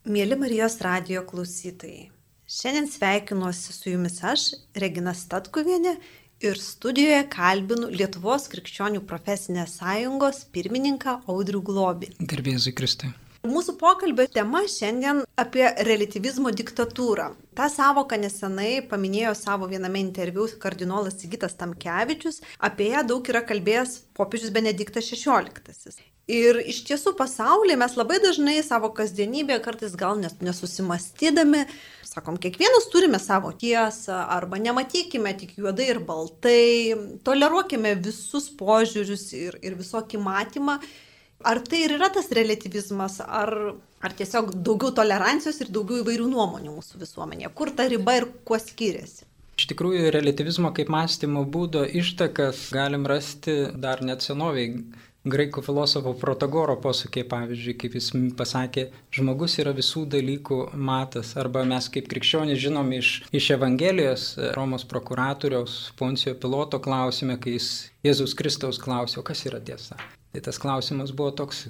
Mėly Marijos radijo klausytojai, šiandien sveikinuosi su jumis aš, Regina Statkuvienė, ir studijoje kalbinu Lietuvos krikščionių profesinės sąjungos pirmininką Audrių Globį. Garbė Jėzui Kristui. Mūsų pokalbio tema šiandien apie reliatyvizmo diktatūrą. Ta sąvoka nesenai paminėjo savo viename interviu kardinolas Sigitas Tamkevičius, apie ją daug yra kalbėjęs popiežius Benediktas XVI. Ir iš tiesų pasaulyje mes labai dažnai savo kasdienybėje, kartais gal nesusimastydami, sakom, kiekvienas turime savo tiesą, arba nematykime tik juodai ir baltai, toleruokime visus požiūrius ir visokį matymą. Ar tai ir yra tas reliatyvizmas, ar tiesiog daugiau tolerancijos ir daugiau įvairių nuomonių mūsų visuomenėje? Kur ta riba ir kuo skiriasi? Iš tikrųjų, reliatyvizmo kaip mąstymo būdo ištakas galim rasti dar net senoviai. Graikų filosofo Protagoro posakė, pavyzdžiui, kaip jis pasakė, žmogus yra visų dalykų matas. Arba mes kaip krikščionys žinom iš Evangelijos Romos prokuratoriaus Poncijo Piloto klausime, kai jis Jėzaus Kristaus klausė, o kas yra tiesa? Tai tas klausimas buvo toks,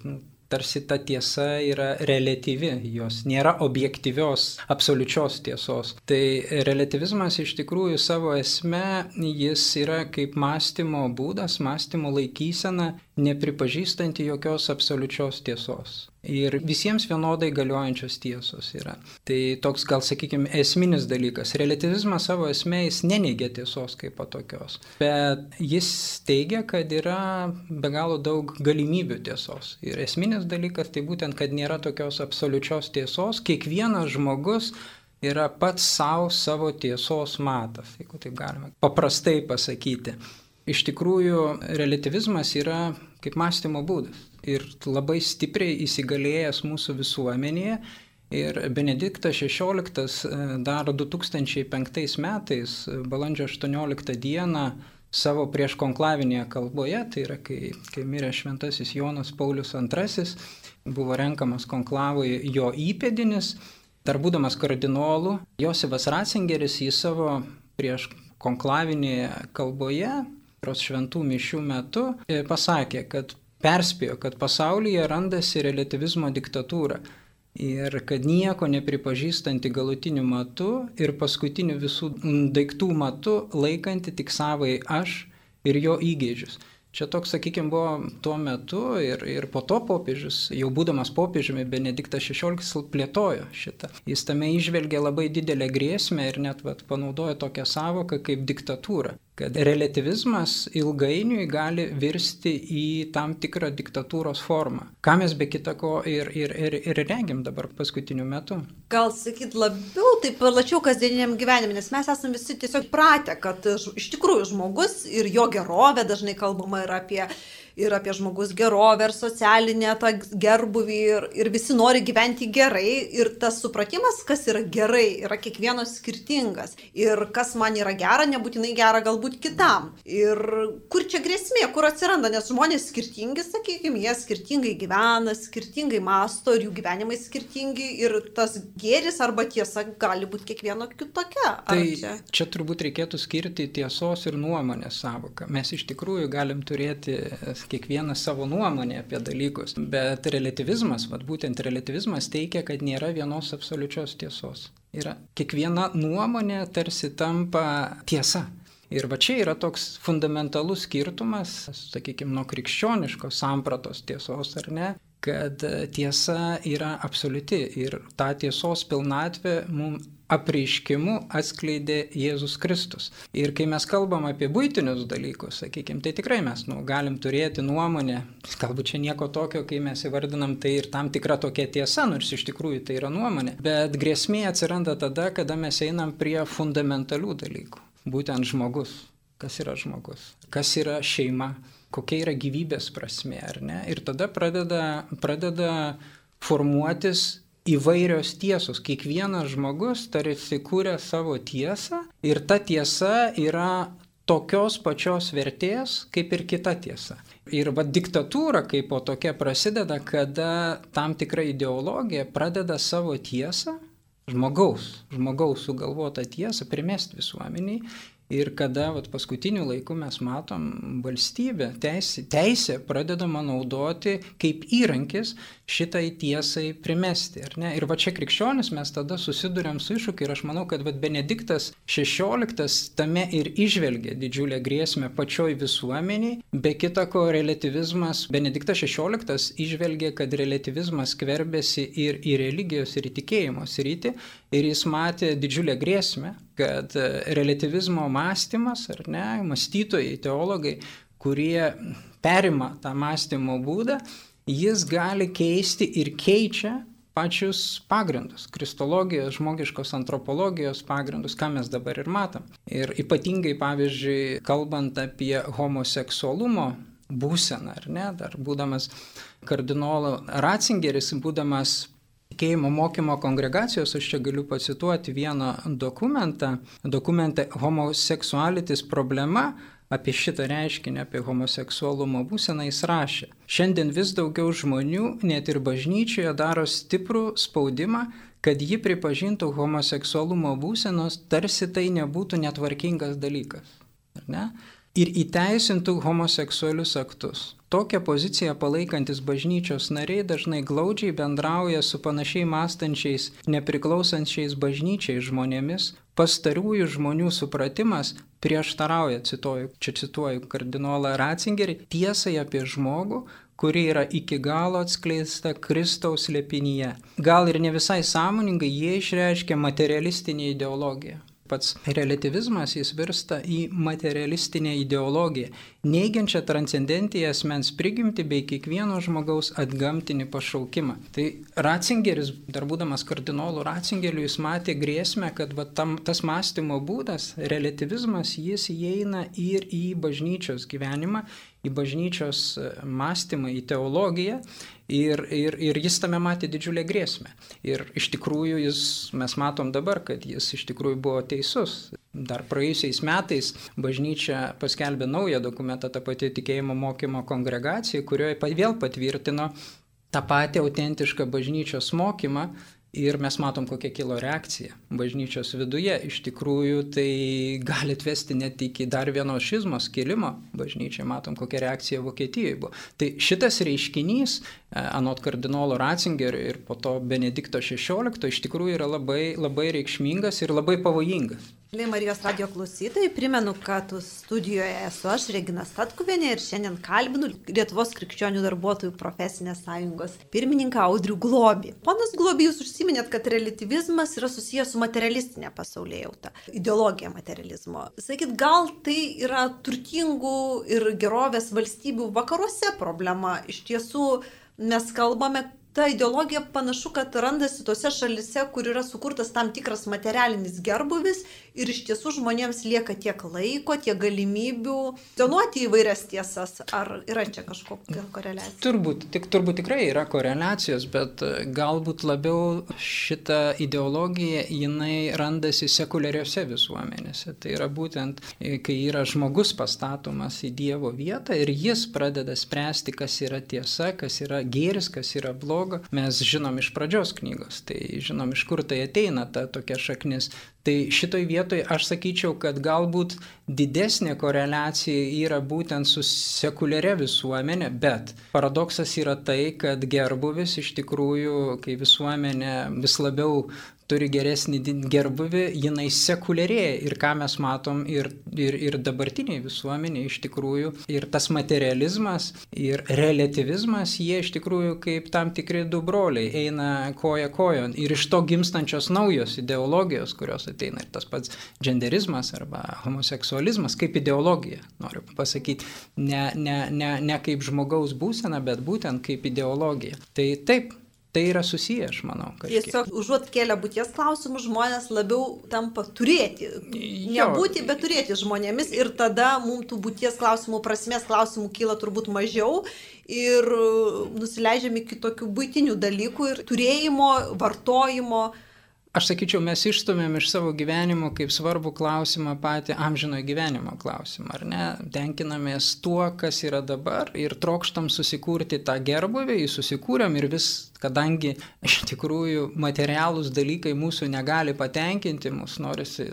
tarsi ta tiesa yra reliatyvi, jos nėra objektyvios, absoliučios tiesos. Tai reliatyvizmas iš tikrųjų savo esme, jis yra kaip mąstymo būdas, mąstymo laikysena, nepripažįstanti jokios absoliučios tiesos. Ir visiems vienodai galiojančios tiesos yra. Tai toks, gal sakykime, esminis dalykas. Reliatyvizmas savo esmė jis neneigia tiesos kaip tokios, bet jis teigia, kad yra be galo daug galimybių tiesos. Ir esminis dalykas tai būtent, kad nėra tokios absoliučios tiesos. Kiekvienas žmogus yra pats savo tiesos matas, jeigu taip galima paprastai pasakyti. Iš tikrųjų, reliatyvizmas yra kaip mąstymo būdas ir labai stipriai įsigalėjęs mūsų visuomenėje. Ir Benediktas XVI dar 2005 metais, balandžio 18 dieną, savo prieškonklavinėje kalboje, tai yra kai mirė šventasis Jonas Paulius II, buvo renkamas konklavui jo įpėdinis, dar būdamas kardinolu, Josifas Ratzingeris į savo prieškonklavinėje kalboje, šventų mišių metu, pasakė, kad perspėjo, kad pasaulyje randasi reliatyvizmo diktatūra ir kad nieko nepripažįstanti galutiniu matu ir paskutiniu visų daiktų matu laikanti tik savai aš ir jo įgeidžius. Čia toks, sakykime, buvo tuo metu ir po to popiežius, jau būdamas popiežiumi, Benediktas XVI plėtojo šitą. Jis tame įžvelgė labai didelę grėsmę ir net panaudojo tokią sąvoką kaip diktatūra. Kad reliatyvizmas ilgainiui gali virsti į tam tikrą diktatūros formą. Ką mes be kita ko ir regim dabar paskutiniu metu. Gal sakyt labiau, taip plačiau kasdieniniam gyvenime, nes mes esame visi tiesiog pratę, kad iš tikrųjų žmogus ir jo gerovė, dažnai kalbama ir apie žmogus gerovę ir socialinę tą gerbuvį ir visi nori gyventi gerai ir tas supratimas, kas yra gerai, yra kiekvieno skirtingas ir kas man yra gera, nebūtinai gera galbūt kitam. Ir kur čia grėsmė, kur atsiranda, nes žmonės skirtingi, sakykime, jie skirtingai gyvena, skirtingai mąsto ir jų gyvenimai skirtingi ir tas gėris arba tiesa gali būti kiekvieno kitokia. Tai čia turbūt reikėtų skirti tiesos ir nuomonės sąvoką. Mes iš tikrųjų galim turėti kiekvieną savo nuomonę apie dalykus, bet reliatyvizmas, būtent reliatyvizmas teigia, kad nėra vienos absoliučios tiesos. Yra kiekviena nuomonė tarsi tampa tiesa. Ir čia yra toks fundamentalus skirtumas, sakykime, nuo krikščioniškos sampratos tiesos, ar ne, kad tiesa yra absoliuti ir tą tiesos pilnatvę mums apreiškimu atskleidė Jėzus Kristus. Ir kai mes kalbam apie buitinius dalykus, sakykime, tai tikrai mes galim turėti nuomonę, galbūt čia nieko tokio, kai mes įvardinam tai ir tam tikra tokia tiesa, nors iš tikrųjų tai yra nuomonė, bet grėsmė atsiranda tada, kada mes einam prie fundamentalių dalykų. Būtent žmogus. Kas yra žmogus? Kas yra šeima? Kokia yra gyvybės prasmė, ar ne? Ir tada pradeda formuotis įvairios tiesos. Kiekvienas žmogus tarsi kūrė savo tiesą ir ta tiesa yra tokios pačios vertės kaip ir kita tiesa. Ir diktatūra kaip po tokia prasideda, kada tam tikra ideologija pradeda savo tiesą, žmogaus sugalvotą tiesą primesti visuomeniai ir kada paskutiniu laiku mes matom valstybę, teisė pradedama naudoti kaip įrankis šitai tiesai primesti. Ir čia krikščionis mes tada susiduriam su iššūkiu ir aš manau, kad Benediktas XVI tame ir įžvelgia didžiulę grėsmę pačioj visuomeniai. Be kita ko, relativizmas, Benediktas XVI įžvelgia, kad relativizmas skverbėsi ir į religijos, ir į tikėjimo sritį ir jis matė didžiulę grėsmę, kad relativizmo mąstymas, mąstytojai, teologai, kurie perima tą mąstymo būdą, jis gali keisti ir keičia pačius pagrindus, kristologijos, žmogiškos antropologijos pagrindus, ką mes dabar ir matom. Ir ypatingai, pavyzdžiui, kalbant apie homoseksualumo būseną, dar būdamas kardinolo Ratzingeris, būdamas tikėjimo mokymo kongregacijos, aš čia galiu pacituoti vieną dokumentą Homosexualities problema, apie šitą reiškinį, apie homoseksualumo būseną jis rašė. Šiandien vis daugiau žmonių, net ir bažnyčioje, daro stiprų spaudimą, kad ji pripažintų homoseksualumo būsenos, tarsi tai nebūtų netvarkingas dalykas. Ir įteisintų homoseksualius aktus. Tokią poziciją palaikantis bažnyčios nariai dažnai glaudžiai bendrauja su panašiai mąstančiais, nepriklausančiais bažnyčiai žmonėmis. Pastarųjų žmonių supratimas prieštarauja, cituoju kardinolą Ratzingerį, tiesai apie žmogų, kuri yra iki galo atskleista Kristaus slėpinyje. Gal ir ne visai sąmoningai jie išreiškia materialistinę ideologiją. Pats relativizmas jis virsta į materialistinę ideologiją, neigiančią transcendentiją asmens prigimtį bei kiekvieno žmogaus atgamtinį pašaukimą. Tai Ratzingeris, dar būdamas kardinolu Ratzingeriu, jis matė grėsmę, kad tas mąstymo būdas, relativizmas, jis įeina ir į bažnyčios gyvenimą, į bažnyčios mąstymą, į teologiją. Ir jis tame matė didžiulę grėsmę. Ir iš tikrųjų mes matom dabar, kad jis iš tikrųjų buvo teisus. Dar praėjusiais metais bažnyčia paskelbė naują dokumentą, ta pati tikėjimo mokymo kongregacija, kurioje vėl patvirtino tą patį autentišką bažnyčios mokymą. Ir mes matom, kokia kilo reakcija bažnyčios viduje. Iš tikrųjų, tai gali atvesti net iki dar vieno šizmos kilimo bažnyčiai. Matom, kokia reakcija Vokietijoje buvo. Tai šitas reiškinys, anot kardinolo Ratzingerio ir po to Benedikto XVI, iš tikrųjų yra labai, labai reikšmingas ir labai pavojingas. Marijos radijo klausytojai, primenu, kad studijoje esu aš, Regina Statkuvienė, ir šiandien kalbinu Lietuvos krikščionių darbuotojų profesinės sąjungos pirmininką Audrių Globį. Ponas Globį, jūs užsiminėt, kad relativizmas yra susijęs su materialistinė pasaulėjauta, ideologija materializmo. Sakyt, gal tai yra turtingų ir gerovės valstybių vakaruose problema? Iš tiesų, mes kalbame, ta ideologija panašu, kad randasi tose šalise, kur yra sukurtas tam tikras materialinis gerbūvis ir iš tiesų žmonėms lieka tiek laiko, tiek galimybių donuoti įvairias tiesas. Ar yra čia kažkokia koreliacija? Turbūt tikrai yra koreliacijos, bet galbūt labiau šita ideologija, jinai randasi sekuliariose visuomenėse. Tai yra būtent, kai yra žmogus pastatomas į Dievo vietą ir jis pradeda spręsti, kas yra tiesa, kas yra gėris, kas yra blogas. Mes žinom iš pradžios knygos, tai žinom, iš kur tai ateina ta tokia šaknis. Tai šitoj vietoj aš sakyčiau, kad galbūt didesnė koreliacija yra būtent su sekuliaria visuomenė, bet paradoksas yra tai, kad gerbūvis iš tikrųjų, kai visuomenė vis labiau turi geresnį gerbuvį, jinai sekuliarėja. Ir ką mes matom ir dabartiniai visuomeniai iš tikrųjų. Ir tas materializmas ir relativizmas, jie iš tikrųjų kaip tam tikri du broliai eina koja kojon. Ir iš to gimstančios naujos ideologijos, kurios ateina. Ir tas pats genderizmas arba homoseksualizmas kaip ideologija, noriu pasakyti. Ne kaip žmogaus būsena, bet būtent kaip ideologija. Tai taip. Tai yra susiję, aš manau. Kažkiek. Tiesiog užuot kėlę būties klausimus, žmonės labiau tampa turėti. Nebūti, bet turėti žmonėmis. Ir tada mums tų būties klausimų, prasmės klausimų kyla turbūt mažiau. Ir nusileidžiam iki tokių buitinių dalykų ir turėjimo, vartojimo. Aš sakyčiau, mes išstumėm iš savo gyvenimo kaip svarbų klausimą patį amžinojo gyvenimo klausimą, ar ne? Tenkinamės tuo, kas yra dabar ir trokštam susikurti tą gerbūvį, jį susikūrėm ir vis, kadangi iš tikrųjų materialūs dalykai mūsų negali patenkinti, mūsų norisi,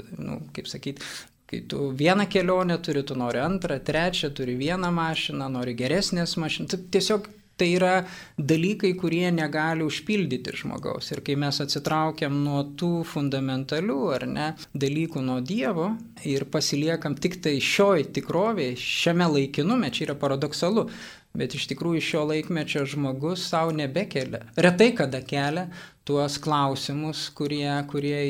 kaip sakyti, Kai tu vieną kelionę turi, tu nori antrą, trečią, turi vieną mašiną, nori geresnės mašiną. Tiesiog tai yra dalykai, kurie negali užpildyti žmogaus. Ir kai mes atsitraukiam nuo tų fundamentalių, ar ne, dalykų nuo Dievo ir pasiliekam tik tai šioj tikrovėje, šiame laikinume, čia yra paradoksalu, bet iš tikrųjų šio laikmečio žmogus savo nebekelia. Retai kada kelia tuos klausimus, kurie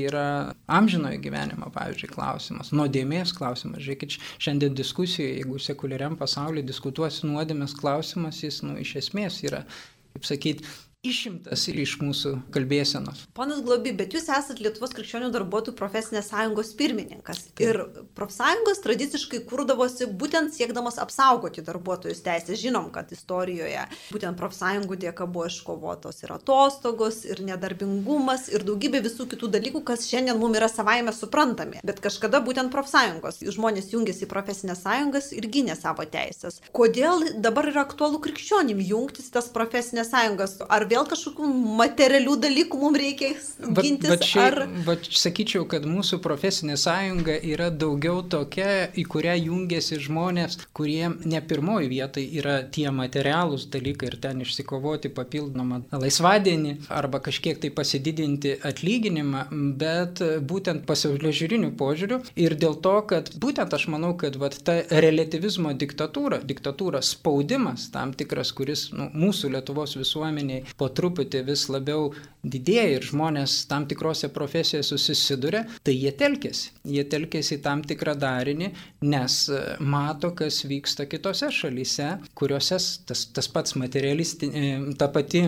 yra amžinojo gyvenimo, pavyzdžiui, klausimas, nuodėmės klausimas. Žiūrėkit, šiandien diskusijoje, jeigu sekuliariam pasaulyje diskutuosi nuodėmės klausimas, jis iš esmės yra, kaip sakyti, išimtas iš mūsų kalbėsenos. Ponas Globy, bet jūs esate Lietuvos krikščionių darbuotojų profesinės sąjungos pirmininkas. Ir profsąjungos tradiciškai kurdavosi būtent siekdamas apsaugoti darbuotojus teisės. Žinom, kad istorijoje būtent profsąjungų dėka buvo iškovotos ir atostogos, ir nedarbingumas, ir daugybė visų kitų dalykų, kas šiandien mums yra savaime suprantami. Bet kažkada būtent profsąjungos žmonės jungėsi į profesinės sąjungas ir gynė savo teisės. Kodėl dabar yra aktualu krikščionim jungtis tas profesinės sąjungas? Ar vėl kažkokių materialių dalykų mums reikia gintis? Sakyčiau, kad mūsų profesinė sąjunga yra daugiau tokia, į kurią jungiasi žmonės, kurie ne pirmoji vietai yra tie materialūs dalykai ir ten išsikovoti papildomą laisvadienį arba kažkiek tai pasididinti atlyginimą, bet būtent pasaulėžiūrinių požiūrių. Ir dėl to, kad būtent aš manau, kad ta relativizmo diktatūra, spaudimas tam tikras, kuris mūsų Lietuvos visuomeniai po truputį vis labiau didėja ir žmonės tam tikrose profesijose susiduria, tai jie telkėsi į tam tikrą darinį, nes mato, kas vyksta kitose šalyse, kuriuose tas pats ta pati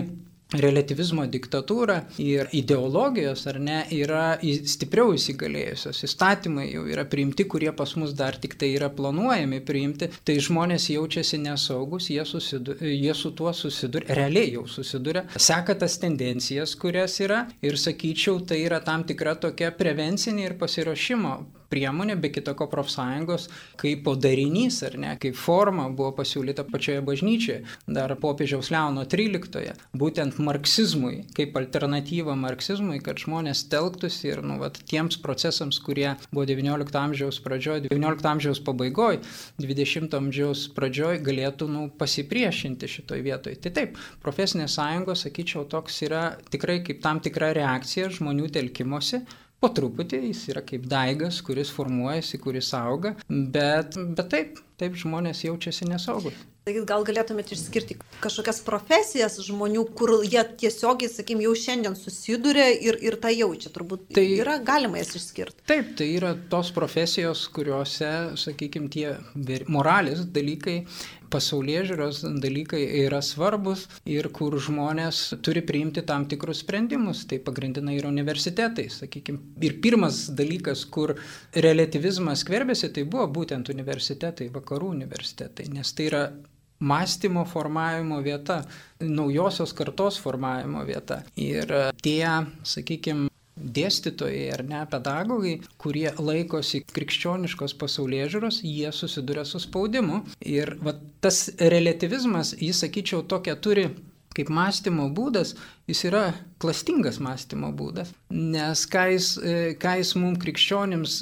relativizmo diktatūra ir ideologijos, ar ne, yra stipriau įsigalėjusios. Įstatymai jau yra priimti, kurie pas mus dar tik tai yra planuojami priimti, tai žmonės jaučiasi nesaugus, jie su tuo susiduria, realiai jau susiduria, seka tas tendencijas, kurias yra ir sakyčiau, tai yra tam tikra tokia prevencinė ir pasiruošimo priemonė, be kitako profsąjungos, kaip darinys, ar ne, kaip forma buvo pasiūlyta pačioje bažnyčioje, dar popiežiaus Leono XIII, būtent marksizmui, kaip alternatyva marksizmui, kad žmonės telktųsi ir tiems procesams, kurie buvo XIX amžiaus pradžioje, XIX amžiaus pabaigoje, XX amžiaus pradžioje, galėtų pasipriešinti šitoj vietoj. Tai taip, profesinės sąjungos, sakyčiau, toks yra tikrai kaip tam tikra reakcija žmonių telkimosi. Po truputį jis yra kaip daigas, kuris formuojasi, kuris auga, bet taip žmonės jaučiasi nesaugus. Taigi gal galėtumėte išskirti kažkokias profesijas žmonių, kur jie tiesiogiai, jau šiandien susiduria ir tą jaučia. Turbūt tai yra galima jas išskirti. Taip, tai yra tos profesijos, kuriuose, tie moralės dalykai, pasaulėžiūros dalykai yra svarbus ir kur žmonės turi priimti tam tikrus sprendimus. Tai pagrindinai yra universitetai, Ir pirmas dalykas, kur relativizmas skverbėsi, tai buvo būtent universitetai, vakarų universitetai, nes tai yra mąstymo formavimo vieta, naujosios kartos formavimo vieta. Ir tie, dėstytojai ar ne, pedagogai, kurie laikosi krikščioniškos pasaulėžiūros, jie susiduria su spaudimu. Ir tas relativizmas, jis, sakyčiau, tokia turi kaip mąstymo būdas, jis yra klastingas mąstymo būdas, nes ką jis mums krikščionims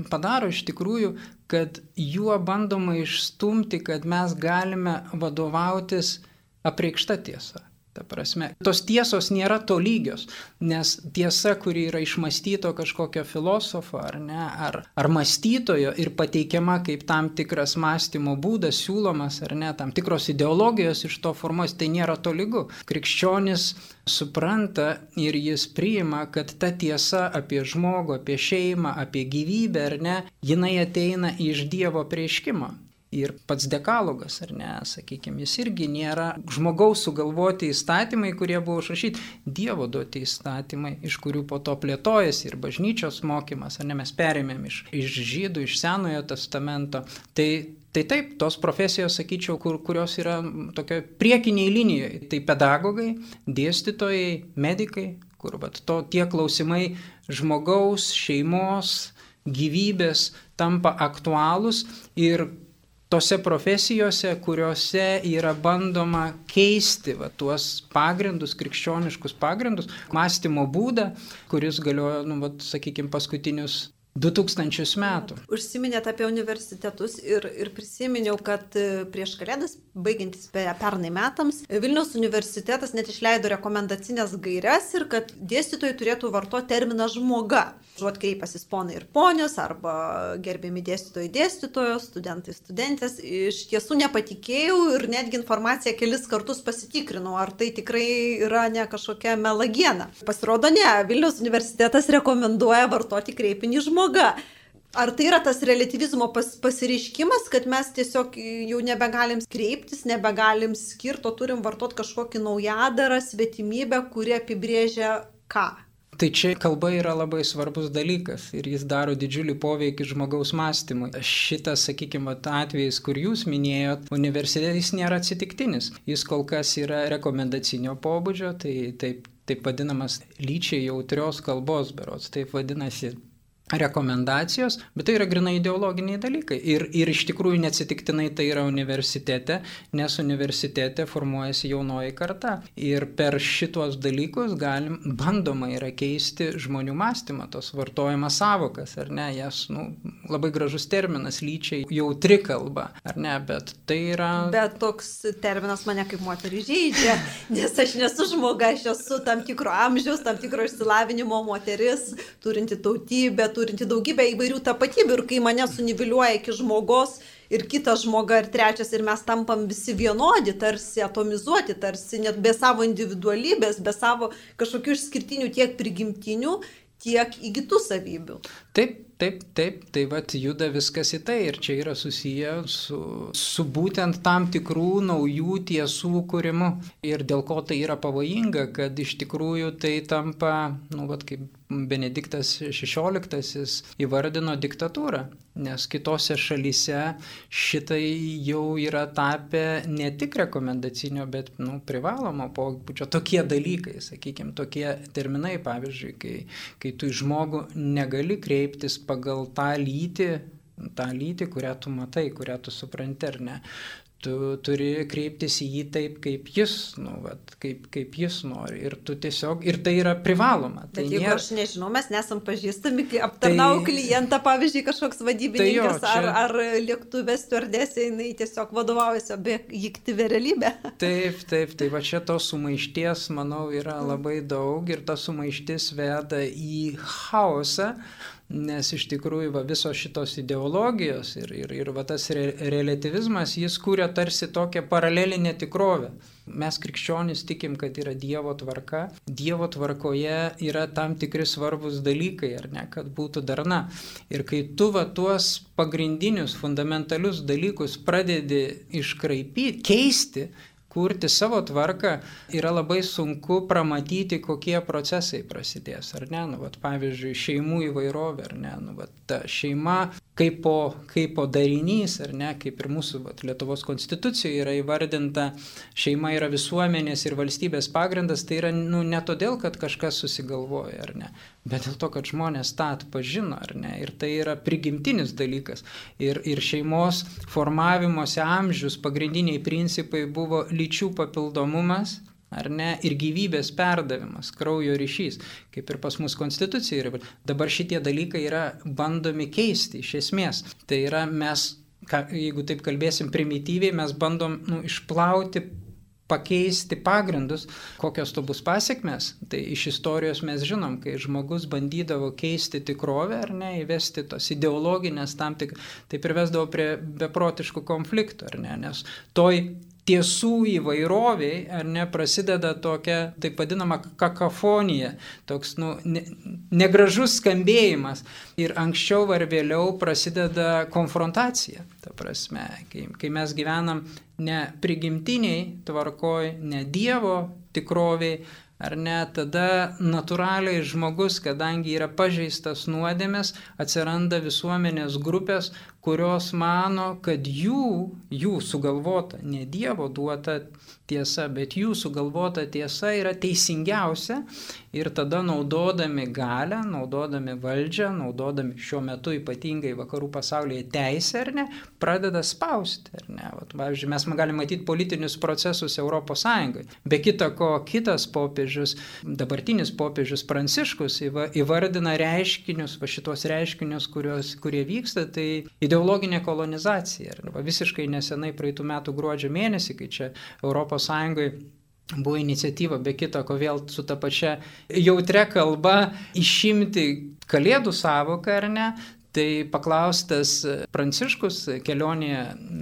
padaro iš tikrųjų, kad juo bandoma išstumti, kad mes galime vadovautis apreikšta tiesa. Ta prasme, tos tiesos nėra tolygios, nes tiesa, kuri yra išmąstyto kažkokio filosofo ar mąstytojo ir pateikiama kaip tam tikras mąstymo būdas, siūlomas ar ne, tam tikros ideologijos iš to formuos, tai nėra tolygu. Krikščionis supranta ir jis priima, kad ta tiesa apie žmogų, apie šeimą, apie gyvybę ar ne, jinai ateina iš Dievo apreiškimo. Ir pats dekalogas, ar ne, jis irgi nėra žmogaus sugalvoti įstatymai, kurie buvo užrašyti, Dievo duoti įstatymai, iš kurių po to plėtojasi ir bažnyčios mokymas, ar ne, mes perėmėm iš žydų, iš Senojo testamento. Tai taip, tos profesijos, sakyčiau, kurios yra tokio priekiniai linijoje, tai pedagogai, dėstytojai, medikai, kur tie klausimai žmogaus, šeimos, gyvybės tampa aktualūs ir tose profesijose, kuriuose yra bandoma keisti tuos pagrindus, krikščioniškus pagrindus, mąstymo būdą, kuris galiojo, paskutinius 2000 metų. Užsiminėt apie universitetus ir prisiminiau, kad prieš Kalėdas, baigiantis pernai metams, Vilniaus universitetas net išleido rekomendacinės gairias ir kad dėstytojai turėtų vartoti terminą žmoga. Žuot kreipasis ponai ir ponios, arba gerbiami dėstytojai dėstytojos, studentai studentės. Iš tiesų nepatikėjau ir netgi informaciją kelis kartus pasitikrinau, ar tai tikrai yra ne kažkokia melagiena. Pasirodo ne, Vilniaus universitetas rekomenduoja vartoti kreipinį žmoga. Ar tai yra tas relativizmo pasireiškimas, kad mes tiesiog jau nebegalim kreiptis, nebegalim skirti, o turim vartoti kažkokį naujadarą, svetimybę, kuri apibrėžia ką? Tai čia kalba yra labai svarbus dalykas ir jis daro didžiulį poveikį žmogaus mąstymui. Šitas, sakykime, atvejis, kur jūs minėjot, universitetas nėra atsitiktinis. Jis kol kas yra rekomendacinio pobūdžio, tai taip vadinamas lyčiai jautrios kalbos berods, taip vadinasi rekomendacijos, bet tai yra grinai ideologiniai dalykai. Ir iš tikrųjų neatsitiktinai tai yra universitete, nes universitete formuojasi jaunoji karta. Ir per šitos dalykus bandoma yra keisti žmonių mąstymą, tos vartojamas savokas, ar ne, jas, labai gražus terminas, lyčiai jautri kalba, ar ne, bet tai yra... Bet toks terminas mane kaip moterį žeidžia, nes aš nesu žmoga, aš esu tam tikro amžiaus, tam tikro išsilavinimo moteris, turinti tautybę, turinti daugybę įvairių tapatybių ir kai mane suniviliuoja iki žmogos ir kitas žmoga ir trečias ir mes tampam visi vienodi, tarsi atomizuoti, tarsi net be savo individualybės, be savo kažkokių išskirtinių tiek prigimtinių, tiek įgytų savybių. Taip, tai vat juda viskas į tai ir čia yra susiję su būtent tam tikrų naujų tiesų kūrimu. Ir dėl ko tai yra pavojinga, kad iš tikrųjų tai tampa, vat kaip Benediktas XVI įvardino diktatūrą, nes kitose šalyse šitai jau yra tapę ne tik rekomendacinio, bet privalomo pobūdžio. Tokie dalykai, sakykime, tokie terminai, pavyzdžiui, kai tu į žmogų negali kreiptis pagal tą lytį, kurią tu matai, kurią tu supranti, ar ne. Tu turi kreiptis į jį taip, kaip jis, kaip jis nori. Ir tu tiesiog, ir tai yra privaloma. Bet jeigu aš nežinau, mes nesam pažįstami, kai aptarnau klientą, pavyzdžiui, kažkoks vadybininkas ar lėktuvės stiuardesė, jinai tiesiog vadovaujasi objektyvia realybė. Taip, tai va čia tos sumaišties, manau, yra labai daug ir ta sumaištis veda į chaosą. Nes iš tikrųjų visos šitos ideologijos ir tas relativizmas, jis kūrė tarsi tokią paralelinę tikrovę. Mes krikščionys tikim, kad yra Dievo tvarka. Dievo tvarkoje yra tam tikri svarbus dalykai, ar ne, kad būtų darna. Ir kai tu tuos pagrindinius, fundamentalius dalykus pradedi iškraipyti, keisti, kurti savo tvarką, yra labai sunku pramatyti, kokie procesai prasidės, ar ne? Pavyzdžiui, šeimų įvairovė, ar ne? Ta šeima kaipo darinys, ar ne? Kaip ir mūsų Lietuvos konstitucijoje yra įvardinta, šeima yra visuomenės ir valstybės pagrindas, tai yra ne todėl, kad kažkas susigalvoja, ar ne? Bet dėl to, kad žmonės tą atpažino, ar ne? Ir tai yra prigimtinis dalykas. Ir šeimos formavimosi amžius pagrindiniai principai buvo lyčių papildomumas, ar ne, ir gyvybės perdavimas, kraujo ryšys, kaip ir pas mus konstitucija. Dabar šitie dalykai yra bandomi keisti iš esmės. Tai yra mes, jeigu taip kalbėsim primityviai, mes bandom išplauti, pakeisti pagrindus, kokios to bus pasiekmes. Tai iš istorijos mes žinom, kai žmogus bandydavo keisti tikrovę, ar ne, įvesti tos ideologinės tam tik, tai privesdavo prie beprotiškų konfliktų, ar ne, nes toj tiesų įvairoviai, ar ne, prasideda tokia, taip vadinama, kakafonija, toks, negražus skambėjimas. Ir anksčiau ar vėliau prasideda konfrontacija. Ta prasme, kai mes gyvenam ne prigimtiniai tvarkoj, ne Dievo tikroviai, ar ne, tada natūraliai žmogus, kadangi yra pažeistas nuodėmės, atsiranda visuomenės grupės, kurios mano, kad jų sugalvota, ne Dievo duota tiesa, bet jų sugalvota tiesa yra teisingiausia ir tada naudodami galią, naudodami valdžią, naudodami šiuo metu ypatingai vakarų pasaulyje teisę, ar ne, pradeda spausti, ar ne. Pavyzdžiui, mes galime matyti politinius procesus Europos Sąjungoje. Be kita ko, kitas popiežius dabartinis popiežius Pranciškus įvardina reiškinius, šitos reiškinius, kurie vyksta, tai ideologinė kolonizacija. Visiškai nesenai praeitų metų gruodžio mėnesį, kai čia ES buvo iniciatyva, be kita ko vėl su ta pačia jautria kalba išimti kalėdų sąvoką, ar ne? Tai paklaustas Pranciškus kelionėje,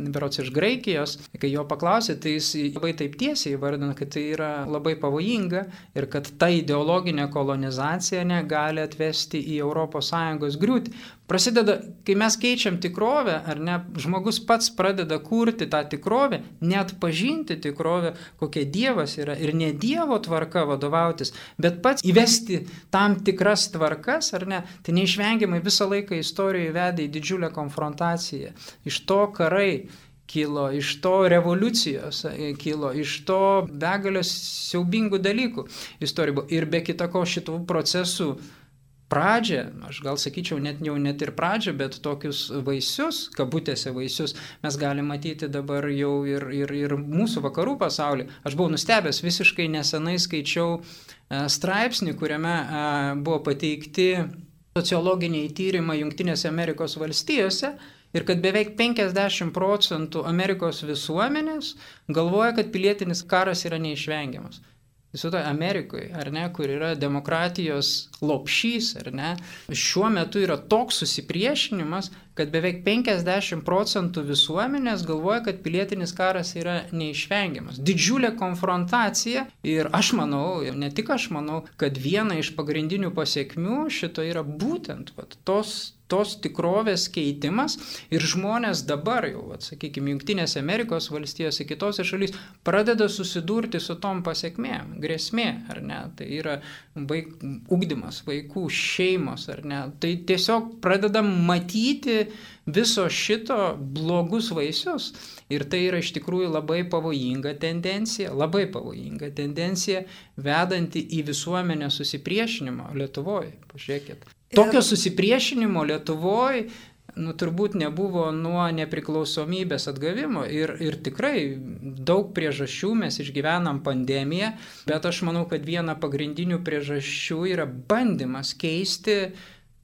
berods iš Graikijos, kai jo paklausė, tai jis labai taip tiesiai įvardino, kad tai yra labai pavojinga ir kad ta ideologinė kolonizacija negali atvesti į ES griūtį. Prasideda, kai mes keičiam tikrovę, ar ne, žmogus pats pradeda kurti tą tikrovę, net pažinti tikrovę, kokia Dievas yra ir ne Dievo tvarka vadovautis, bet pats įvesti tam tikras tvarkas, ar ne, tai neišvengiamai visą laiką istorijoje vedė į didžiulę konfrontaciją. Iš to karai kilo, iš to revoliucijos kilo, iš to begalės siaubingų dalykų istorijoje. Ir be kita ko šitų procesų pradžią, aš gal sakyčiau net ir pradžią, bet tokius vaisius, kabutėse vaisius, mes galime matyti dabar jau ir mūsų vakarų pasaulyje. Aš buvau nustebęs, visiškai nesenai skaičiau straipsnį, kuriame buvo pateikti sociologiniai tyrimai Jungtinėse Amerikos valstijose ir kad beveik 50% Amerikos visuomenės galvoja, kad pilietinis karas yra neišvengiamas. Viso to Amerikoje, ar ne, kur yra demokratijos lopšys, ar ne, šiuo metu yra toks susipriešinimas, kad beveik 50% visuomenės galvoja, kad pilietinis karas yra neišvengiamas. Didžiulė konfrontacija ir aš manau, ir ne tik aš manau, kad viena iš pagrindinių pasiekmių šito yra būtent tos tikrovės keitimas ir žmonės dabar jau, sakykime, Jungtinėse Amerikos valstijose, kitose šalys pradeda susidurti su tom pasiekmėm, grėsmė, ar ne, tai yra ugdymas, vaikų šeimos, ar ne, tai tiesiog pradeda matyti viso šito blogus vaisius ir tai yra iš tikrųjų labai pavojinga tendencija, vedanti į visuomenę susipriešinimo Lietuvoje, pažiūrėkit. Tokio susipriešinimo Lietuvoje turbūt nebuvo nuo nepriklausomybės atgavimo ir tikrai daug priežasčių mes išgyvenam pandemiją, bet aš manau, kad viena pagrindinių priežasčių yra bandymas keisti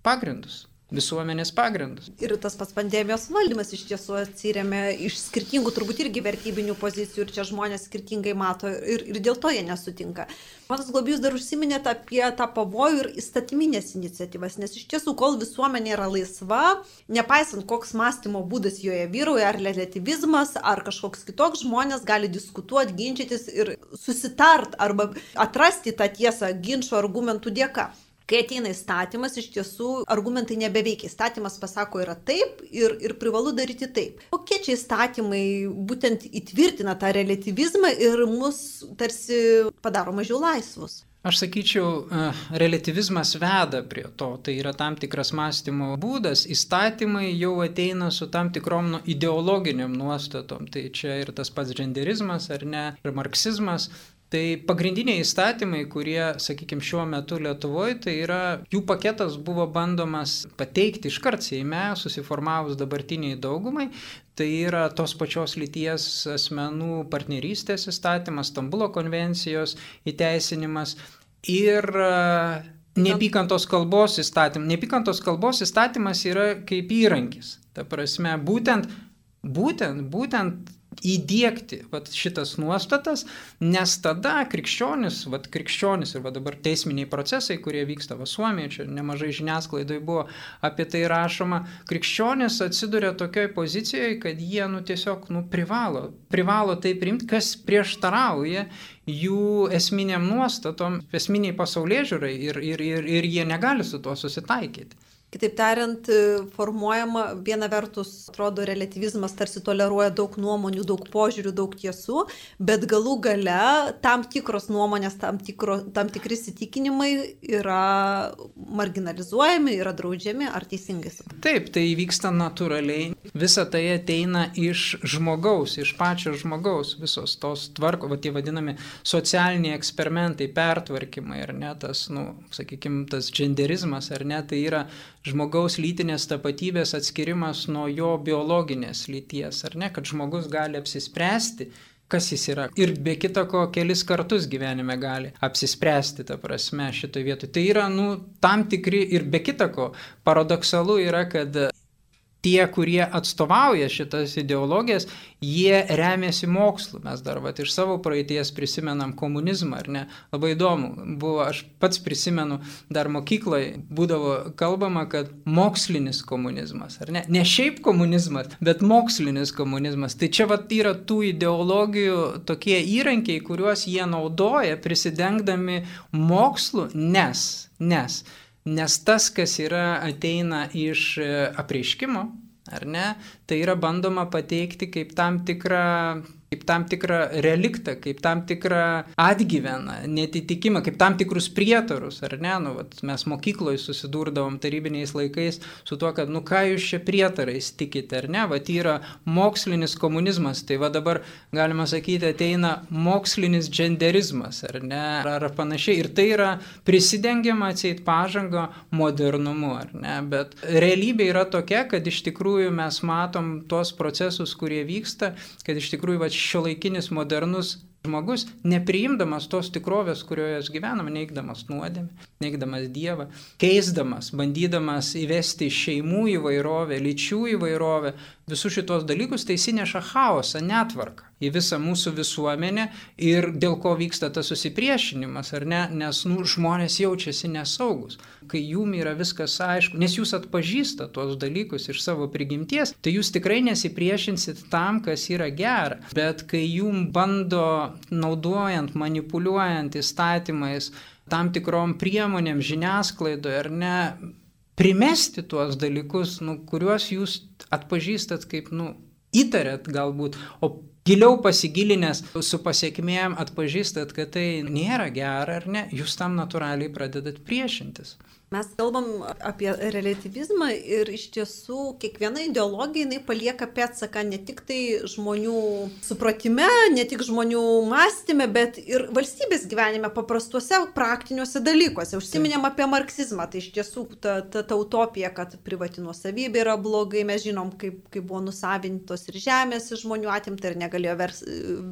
pagrindus. Visuomenės pagrindus. Ir tas pats pandemijos valdymas iš tiesų atsiremia iš skirtingų turbūt irgi vertybinių pozicijų ir čia žmonės skirtingai mato ir dėl to jie nesutinka. Ponas Globėjus dar užsiminėte apie tą pavojų ir įstatyminės iniciatyvas, nes iš tiesų, kol visuomenė yra laisva, nepaisant koks mąstymo būdas joje vyrauja, ar relativizmas, ar kažkoks kitoks, žmonės gali diskutuoti, ginčytis ir susitart arba atrasti tą tiesą ginčio argumentų dėka. Kai ateina įstatymas, iš tiesų argumentai nebeveikia. Įstatymas pasako yra taip ir privalu daryti taip. Kokie čia įstatymai būtent įtvirtina tą relativizmą ir mus tarsi padaro mažiau laisvus? Aš sakyčiau, relativizmas veda prie to, tai yra tam tikras mąstymo būdas, įstatymai jau ateina su tam tikrom ideologiniam nuostatom, tai čia ir tas pats genderizmas, ar ne, ir marksizmas. Tai pagrindiniai įstatymai, kurie, sakykime, šiuo metu Lietuvoje, tai yra, jų paketas buvo bandomas pateikti iškart Seime, susiformavus dabartiniai daugumai, tai yra tos pačios lyties asmenų partnerystės įstatymas, Stambulo konvencijos įteisinimas ir neapykantos kalbos įstatymas. Neapykantos kalbos įstatymas yra kaip įrankis, ta prasme, būtent įdiegti šitas nuostatas, nes tada krikščionis ir dabar teisminiai procesai, kurie vyksta Suomijoje, čia nemažai žiniasklaidoje buvo apie tai rašoma, krikščionis atsiduria tokioj pozicijoje, kad jie tiesiog privalo tai priimti, kas prieštarauja jų esminiam nuostatom, esminiai pasaulėžiūrai ir jie negali su tuo susitaikyti. Kitaip tariant, formuojama viena vertus, atrodo, relativizmas tarsi toleruoja daug nuomonių, daug požiūrių, daug tiesų, bet galų gale tam tikros nuomonės, tam tikri įsitikinimai yra marginalizuojami, yra draudžiami, ar teisingai? Taip, tai vyksta natūraliai. Visa tai ateina iš žmogaus, iš pačio žmogaus, visos tos tvarko, tie vadinami socialiniai eksperimentai, pertvarkymai, ar ne, tas, sakykime, tas genderizmas, ar ne, tai yra žmogaus lytinės tapatybės atskirimas nuo jo biologinės lyties, ar ne, kad žmogus gali apsispręsti kas jis yra. Ir be kita ko kelis kartus gyvenime gali apsispręsti, ta prasme, šitoje vietoje. Tai yra, tam tikri ir be kita ko paradoksalu yra, kad tie, kurie atstovauja šitas ideologijas, jie remiasi mokslu. Mes dar iš savo praeities prisimenam komunizmą, ar ne? Labai įdomu buvo, aš pats prisimenu, dar mokykloje būdavo kalbama, kad mokslinis komunizmas, ar ne? Ne šiaip komunizmas, bet mokslinis komunizmas. Tai čia yra tų ideologijų tokie įrankiai, kuriuos jie naudoja prisidengdami mokslu, nes tas, kas ateina iš apreiškimo, ar ne, tai yra bandoma pateikti kaip tam tikrą reliktą, kaip tam tikrą atgyveną, netitikimą, kaip tam tikrus prietarus, ar ne, mes mokykloje susidurdavom tarybiniais laikais su tuo, kad ką jūs čia prietarais tikite, ar ne, yra mokslinis komunizmas, tai dabar galima sakyti ateina mokslinis dženderizmas, ar ne, ar panašiai, ir tai yra prisidengiama atseit pažanga modernumu, ar ne, bet realybė yra tokia, kad iš tikrųjų mes matom tos procesus, kurie vyksta, kad iš tikrųjų šiuolaikinis modernus žmogus, nepriimdamas tos tikrovės, kurioje gyvename, neigdamas nuodėmę, neigdamas Dievą, keisdamas, bandydamas įvesti šeimų įvairovę, lyčių įvairovę, visus šitos dalykus, tai įsineša chaosą, netvarką į visą mūsų visuomenę ir dėl ko vyksta tas susipriešinimas, ar ne, nes žmonės jaučiasi nesaugus. Kai jum yra viskas aišku, nes jūs atpažįstate tuos dalykus iš savo prigimties, tai jūs tikrai nesipriešinsit tam, kas yra gera. Bet kai jum bando naudojant, manipuliuojant įstatymais, tam tikrom priemonėm žiniasklaidoje, ar ne, primesti tuos dalykus, kuriuos jūs atpažįstat kaip, įtarėt galbūt, o giliau pasigilinęs su pasiekmėm atpažįstat, kad tai nėra gera, ar ne, jūs tam natūraliai pradedat priešintis. Mes kalbam apie relativizmą ir iš tiesų kiekviena ideologija jinai palieka pėdsaką ne tik tai žmonių supratime, ne tik žmonių mąstyme, bet ir valstybės gyvenime paprastuose praktiniuose dalykuose. Užsiminėm apie marksizmą, tai iš tiesų ta utopija, kad privati nuosavybė yra blogai, mes žinom, kaip buvo nusavintos ir žemės iš žmonių atimta ir negalėjo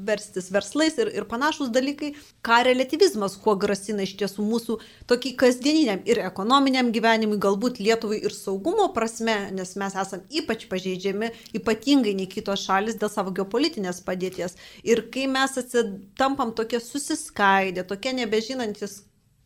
verstis verslais ir panašus dalykai. Ką relativizmas, kuo grasina iš tiesų mūsų tokį kasdieniniam ir ekonominiam gyvenimui, galbūt Lietuvai ir saugumo prasme, nes mes esam ypač pažeidžiami, ypatingai nei kitos šalis dėl savo geopolitinės padėties. Ir kai mes tampam tokie susiskaidę, tokie nebežinantis,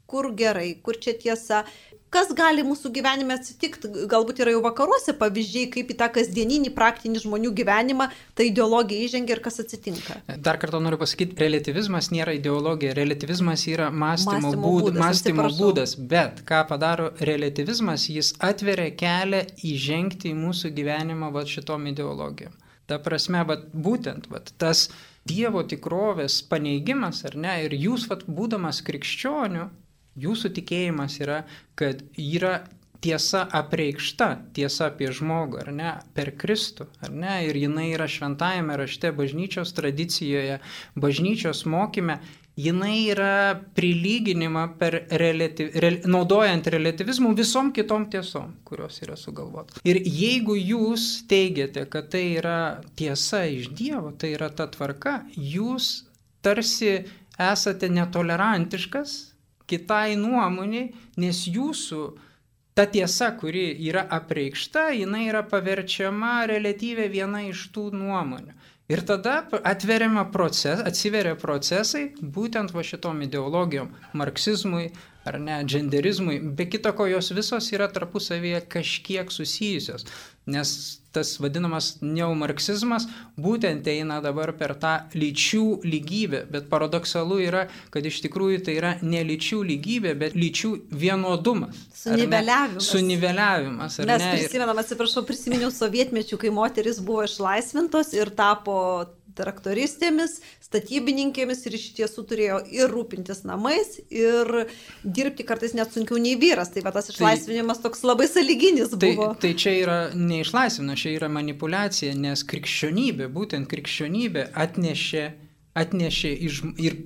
kur gerai, kur čia tiesa, kas gali mūsų gyvenime atsitikti, galbūt yra jau vakaruose pavyzdžiai, kaip į tą kasdieninį praktinį žmonių gyvenimą ta ideologija įžengia ir kas atsitinka. Dar kartą noriu pasakyti, relativizmas nėra ideologija, relativizmas yra mąstymo būdas, bet ką padaro relativizmas, jis atveria kelią įžengti į mūsų gyvenimą šitom ideologijom. Ta prasme, būtent tas Dievo tikrovės paneigimas, ar ne, ir jūs, būdamas krikščioniu, jūsų tikėjimas yra, kad yra tiesa apreikšta, tiesa apie žmogų, ar ne, per Kristų, ar ne, ir jinai yra šventajame rašte, bažnyčios tradicijoje, bažnyčios mokyme, jinai yra prilyginima naudojant relativizmų visom kitom tiesom, kurios yra sugalvotos. Ir jeigu jūs teigiate, kad tai yra tiesa iš Dievo, tai yra ta tvarka, jūs tarsi esate netolerantiškas kitai nuomoniai, nes jūsų ta tiesa, kuri yra apreikšta, jinai yra paverčiama relatyviai viena iš tų nuomonių. Ir tada atsiveria procesai būtent šitom ideologijom, marksizmui ar ne, dženderizmui, be kita ko jos visos yra tarpusavyje kažkiek susijusios, nes tas vadinamas neomarksizmas būtent eina dabar per tą lyčių lygybę, bet paradoksalu yra, kad iš tikrųjų tai yra ne lyčių lygybė, bet lyčių vienodumas. Suniveliavimas. Mes prisiminiau sovietmečių, kai moteris buvo išlaisvintos ir tapo traktoristėmis, statybininkėmis ir iš tiesų turėjo ir rūpintis namais, ir dirbti kartais net sunkiau nei vyras. Tai tas išlaisvinimas toks labai sąlyginis buvo. Tai čia yra neišlaisvinimas, čia yra manipuliacija, nes būtent krikščionybė atnešė ir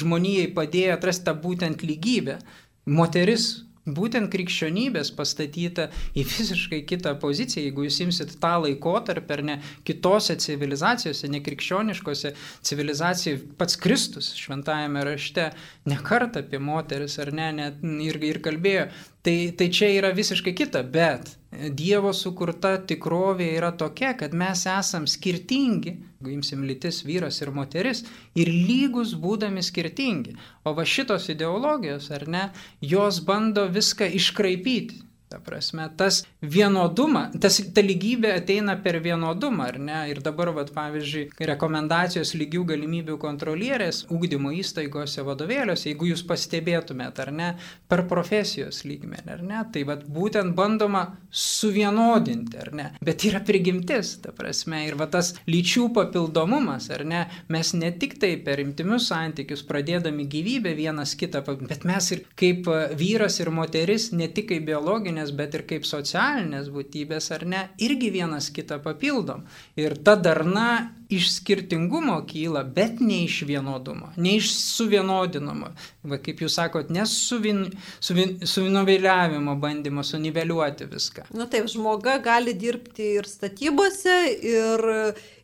žmonijai padėjo atrasti tą būtent lygybę. Moteris būtent krikščionybės pastatyta į visiškai kitą poziciją. Jeigu jūs imsit tą laikotarpį, ar ne, kitose civilizacijose, nekrikščioniškose civilizacijose, pats Kristus šventajame rašte ne kartą apie moteris, ar ne, net ir kalbėjo. Tai čia yra visiškai kita, bet Dievo sukurta tikrovė yra tokia, kad mes esam skirtingi, jeigu imsim lytis vyras ir moteris, ir lygus būdami skirtingi. O va šitos ideologijos, ar ne, jos bando viską iškraipyti. Ta prasme, tas vienodumą, ta lygybė ateina per vienodumą, ar ne? Ir dabar, pavyzdžiui, rekomendacijos lygių galimybių kontrolierės ugdymo įstaigose, vadovėliuose, jeigu jūs pastebėtumėt, ar ne, per profesijos lygmenį, ar ne, tai būtent bandoma suvienodinti, ar ne? Bet yra prigimtis, ta prasme, ir tas lyčių papildomumas, ar ne, mes ne tik tai per intymius santykius pradėdami gyvybę vienas kitą, bet mes ir kaip vyras ir moteris, ne tik kaip biologinė, bet ir kaip socialinės būtybės, ar ne, irgi vienas kitą papildom. Ir ta darna iš skirtingumo kyla, bet ne iš vienodumo, ne iš suvienodinimo. Va, kaip jūs sakot, ne suvienodavimo bandymo suniveliuoti viską. Nu taip, žmoga gali dirbti ir statybose,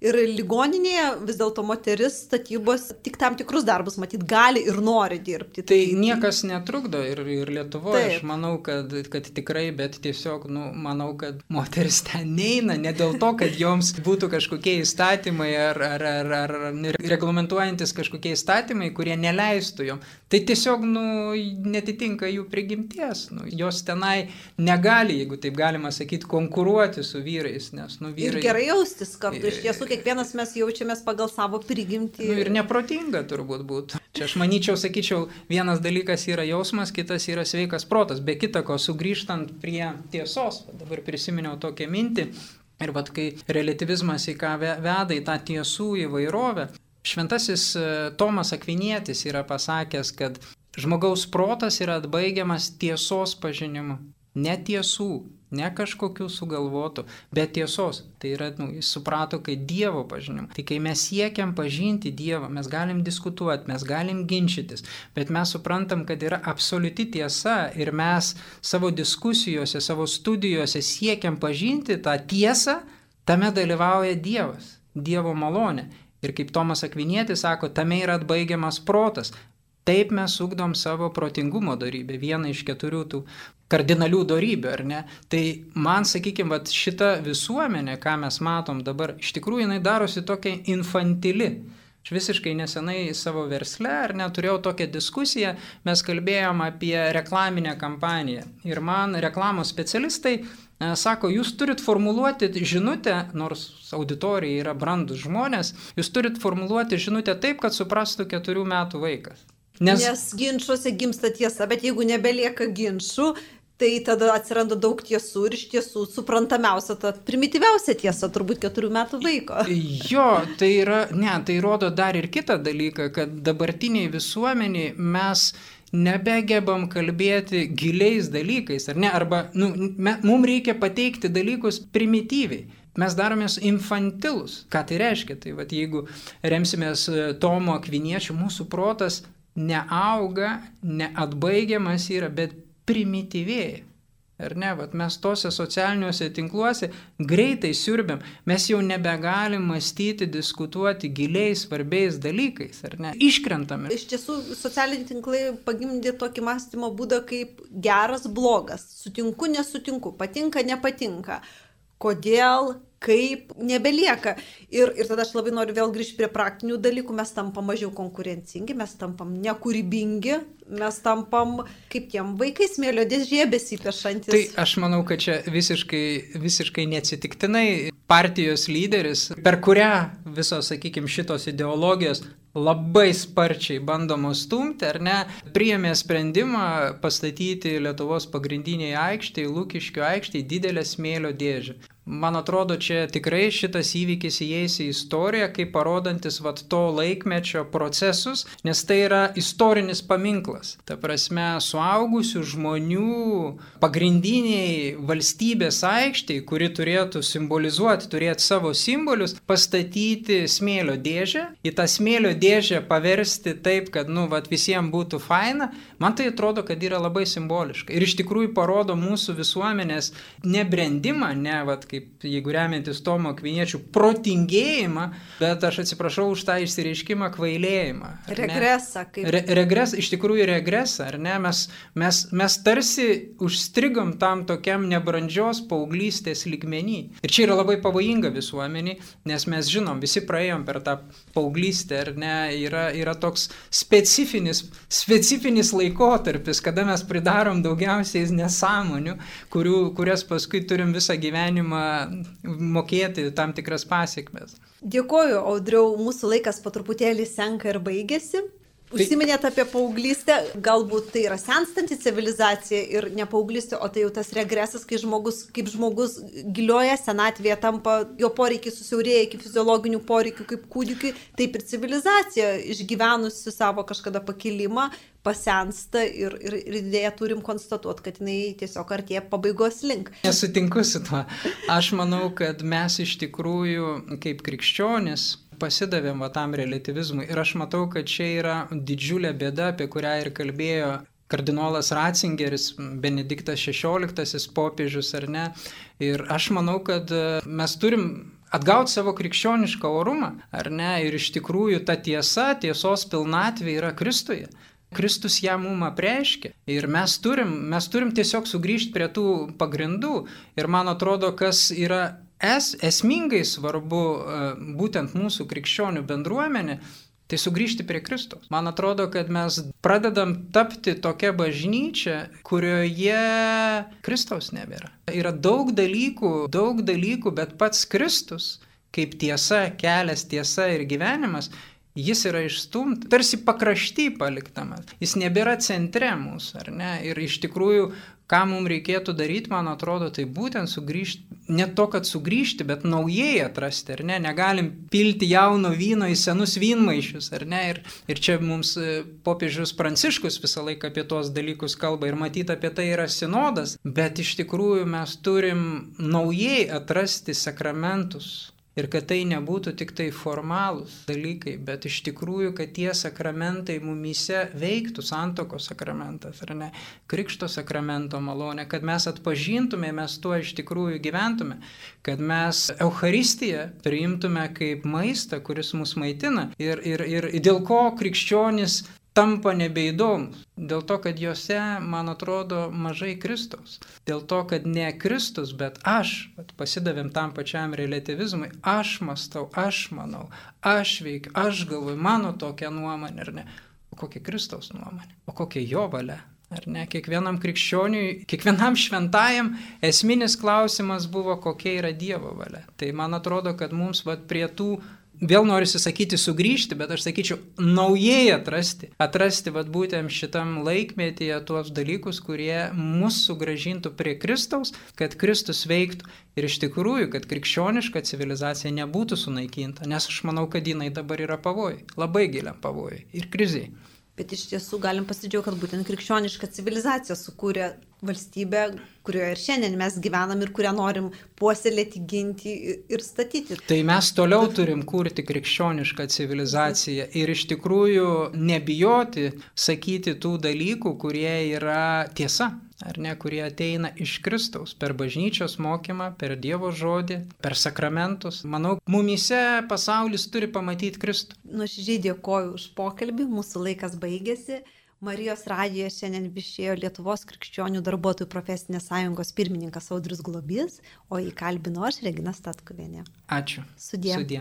ir ligoninėje, vis dėlto moteris statybos tik tam tikrus darbus matyt gali ir nori dirbti. Tai niekas netrukdo ir Lietuvoje, aš manau, kad tikrai, bet tiesiog, manau, kad moteris ten neina, ne dėl to, kad joms būtų kažkokie įstatymai ar reglamentuojantis kažkokie įstatymai, kurie neleistų jom. Tai tiesiog, netitinka jų prigimties. Jos tenai negali, jeigu taip galima sakyti, konkuruoti su vyrais, nes, vyrai... Ir gerai jaustis kartu, iš tiesų kiekvienas mes jaučiamės pagal savo prigimtį. Ir neprotinga turbūt būtų. Čia aš manyčiau, sakyčiau, vienas dalykas yra jausmas, kitas yra sveikas protas. Be kita ko, sugrįžtant prie tiesos, dabar prisiminiau tokią mintį, ir kai relativizmas į ką veda į tą tiesų įvairovę, šventasis Tomas Akvinietis yra pasakęs, kad žmogaus protas yra atbaigiamas tiesos pažinimu. Ne tiesų, ne kažkokių sugalvotų, bet tiesos. Tai yra, jis suprato, kai Dievo pažinimu. Tai kai mes siekiam pažinti Dievą, mes galim diskutuoti, mes galim ginčytis, bet mes suprantam, kad yra absoliuti tiesa ir mes savo diskusijose, savo studijose siekiam pažinti tą tiesą, tame dalyvauja Dievas, Dievo malonė. Ir kaip Tomas Akvinietis sako, tame yra atbaigiamas protas. Taip mes ugdom savo protingumo dorybę, vieną iš 4 tų kardinalių dorybių, ar ne? Tai man, sakykime, šita visuomenė, ką mes matom dabar, iš tikrųjų jinai darosi tokia infantili. Aš visiškai nesenai savo versle, ar ne, turėjau tokią diskusiją, mes kalbėjom apie reklaminę kampaniją. Ir man reklamos specialistai sako, jūs turit formuluoti žinutę, nors auditorija yra brandus žmonės, jūs turit formuluoti žinutę taip, kad suprastų 4 metų vaikas. Nes ginčuose gimsta tiesa, bet jeigu nebelieka ginčų, tai tada atsiranda daug tiesų ir iš tiesų suprantamiausia, ta primityviausia tiesa turbūt 4 metų vaiko. Jo, tai rodo dar ir kitą dalyką, kad dabartiniai visuomeniai mes nebegebam kalbėti giliais dalykais, ar ne? Arba mums reikia pateikti dalykus primityviai. Mes daromės infantilus. Ką tai reiškia? Tai jeigu remsimės Tomo Akviniečio, mūsų protas neauga, neatbaigiamas yra, bet primityvėja. Ar ne? Mes tose socialiniuose tinkluose greitai siurbiam. Mes jau nebegalim mąstyti, diskutuoti giliais, svarbiais dalykais, ar ne? Iškrentame. Iš tiesų, socialiniai tinklai pagimdė tokį mąstymo būdą kaip geras, blogas. Sutinku, nesutinku, patinka, nepatinka. Kodėl, kaip, nebelieka. Ir tada aš labai noriu vėl grįžti prie praktinių dalykų. Mes tampam mažiau konkurencingi, mes tampam nekūrybingi, mes tampam kaip tiem vaikai smėlio dėžėje besipešantis. Tai aš manau, kad čia visiškai neatsitiktinai partijos lyderis, per kurią visos, sakykime, šitos ideologijos labai sparčiai bandomos stumti, ar ne, priėmė sprendimą pastatyti Lietuvos pagrindiniai aikštėje, Lukiškių aikštėje didelę smėlio dėžę. Man atrodo, čia tikrai šitas įvykis įeis į istoriją, kaip parodantis to laikmečio procesus, nes tai yra istorinis paminklas. Ta prasme, suaugusių žmonių pagrindiniai valstybės aikštei, kuri turėtų simbolizuoti, turėti savo simbolius, pastatyti smėlio dėžę, į tą smėlio dėžę paversti taip, kad visiems būtų faina, man tai atrodo, kad yra labai simboliška. Ir iš tikrųjų parodo mūsų visuomenės nebrendimą, kaip jeigu remiantis Tomo Akviniečių protingėjimą, bet aš atsiprašau už tą išsireiškimą kvailėjimą. Regresą. Regresą, iš tikrųjų regresą, ar ne? Mes tarsi užstrigom tam tokiam nebrandžios paauglystės lygmenį. Ir čia yra labai pavojinga visuomenį, nes mes žinom, visi praėjom per tą paauglystę, ar ne? Yra toks specifinis laikotarpis, kada mes pridarom daugiausiai nesąmonių, kurias paskui turim visą gyvenimą mokėti tam tikras pasiekmes. Dėkoju, Audriau, mūsų laikas po truputėlį senka ir baigėsi. Užsiminėt apie paauglystę, galbūt tai yra senstanti civilizacija ir ne paauglystė, o tai jau tas regresas, kai kaip žmogus gilioje senatvėje tampa, jo poreikiai susiaurėja iki fiziologinių poreikių kaip kūdikiui, taip ir civilizacija išgyvenusi savo kažkada pakilimą pasensta ir dėja turim konstatuoti, kad jinai tiesiog artėja pabaigos link. Nesutinku su tuo. Aš manau, kad mes iš tikrųjų kaip krikščionis pasidavėm tam relativizmui ir aš matau, kad čia yra didžiulė bėda, apie kurią ir kalbėjo kardinolas Ratzingeris, Benediktas XVI popiežius, ar ne. Ir aš manau, kad mes turim atgauti savo krikščionišką orumą, ar ne, ir iš tikrųjų ta tiesos pilnatvė yra Kristuje. Kristus ją mum apreiškė ir mes turim tiesiog sugrįžti prie tų pagrindų ir man atrodo, kas yra esmingai svarbu būtent mūsų krikščionių bendruomenė, tai sugrįžti prie Kristaus. Man atrodo, kad mes pradedam tapti tokia bažnyčia, kurioje Kristaus nebėra. Yra daug dalykų, bet pats Kristus, kaip tiesa, kelias, tiesa ir gyvenimas, jis yra išstumtas, tarsi pakrašty paliktamas. Jis nebėra centre mūsų, ar ne? Ir iš tikrųjų, ką mums reikėtų daryti, man atrodo, tai būtent sugrįžti, ne to, kad sugrįžti, bet naujai atrasti, ar ne? Negalim pilti jauno vyno į senus vynmaišius, ar ne? Ir čia mums popiežius Pranciškus visą laiką apie tuos dalykus kalba ir matyti apie tai yra sinodas, bet iš tikrųjų mes turim naujai atrasti sakramentus. Ir kad tai nebūtų tik tai formalūs dalykai, bet iš tikrųjų, kad tie sakramentai mumyse veiktų, santuokos sakramentas, ar ne, krikšto sakramento malonė, kad mes atpažintume, mes tuo iš tikrųjų gyventume, kad mes Eucharistiją priimtume kaip maistą, kuris mus maitina ir dėl ko krikščionis tampa nebeįdomus. Dėl to, kad juose, man atrodo, mažai Kristaus. Dėl to, kad ne Kristus, bet aš, pasidavėm tam pačiam relativizmui, aš mąstau, aš manau, aš veikiu, aš galvoju, mano tokia nuomonė, ar ne? O kokia Kristaus nuomonė? O kokia jo valia? Ar ne? Kiekvienam krikščioniui, kiekvienam šventajam esminis klausimas buvo, kokia yra Dievo valia. Tai man atrodo, kad mums prie tų vėl norisi sakyti sugrįžti, bet aš sakyčiau naujai atrasti būtent šitam laikmetyje tuos dalykus, kurie mus sugrąžintų prie Kristaus, kad Kristus veiktų ir iš tikrųjų, kad krikščioniška civilizacija nebūtų sunaikinta, nes aš manau, kad jinai dabar yra pavojai, labai giliam pavojai ir kriziai. Bet iš tiesų galim pasidžiaugti, kad būtent krikščioniška civilizacija sukūrė valstybę, kurioje ir šiandien mes gyvenam ir kurią norim puoselėti, ginti ir statyti. Tai mes toliau turim kurti krikščionišką civilizaciją ir iš tikrųjų nebijoti sakyti tų dalykų, kurie yra tiesa, ar ne, kurie ateina iš Kristaus per bažnyčios mokymą, per Dievo žodį, per sakramentus. Manau, mumyse pasaulis turi pamatyti Kristų. Nuoširdžiai dėkoju už pokalbį, mūsų laikas baigėsi. Marijos radijoje šiandien viešėjo Lietuvos krikščionių darbuotojų profesinės sąjungos pirmininkas Audrius Globys, o jį kalbino aš, Regina Statkuvienė. Ačiū. Sudie. Sudie.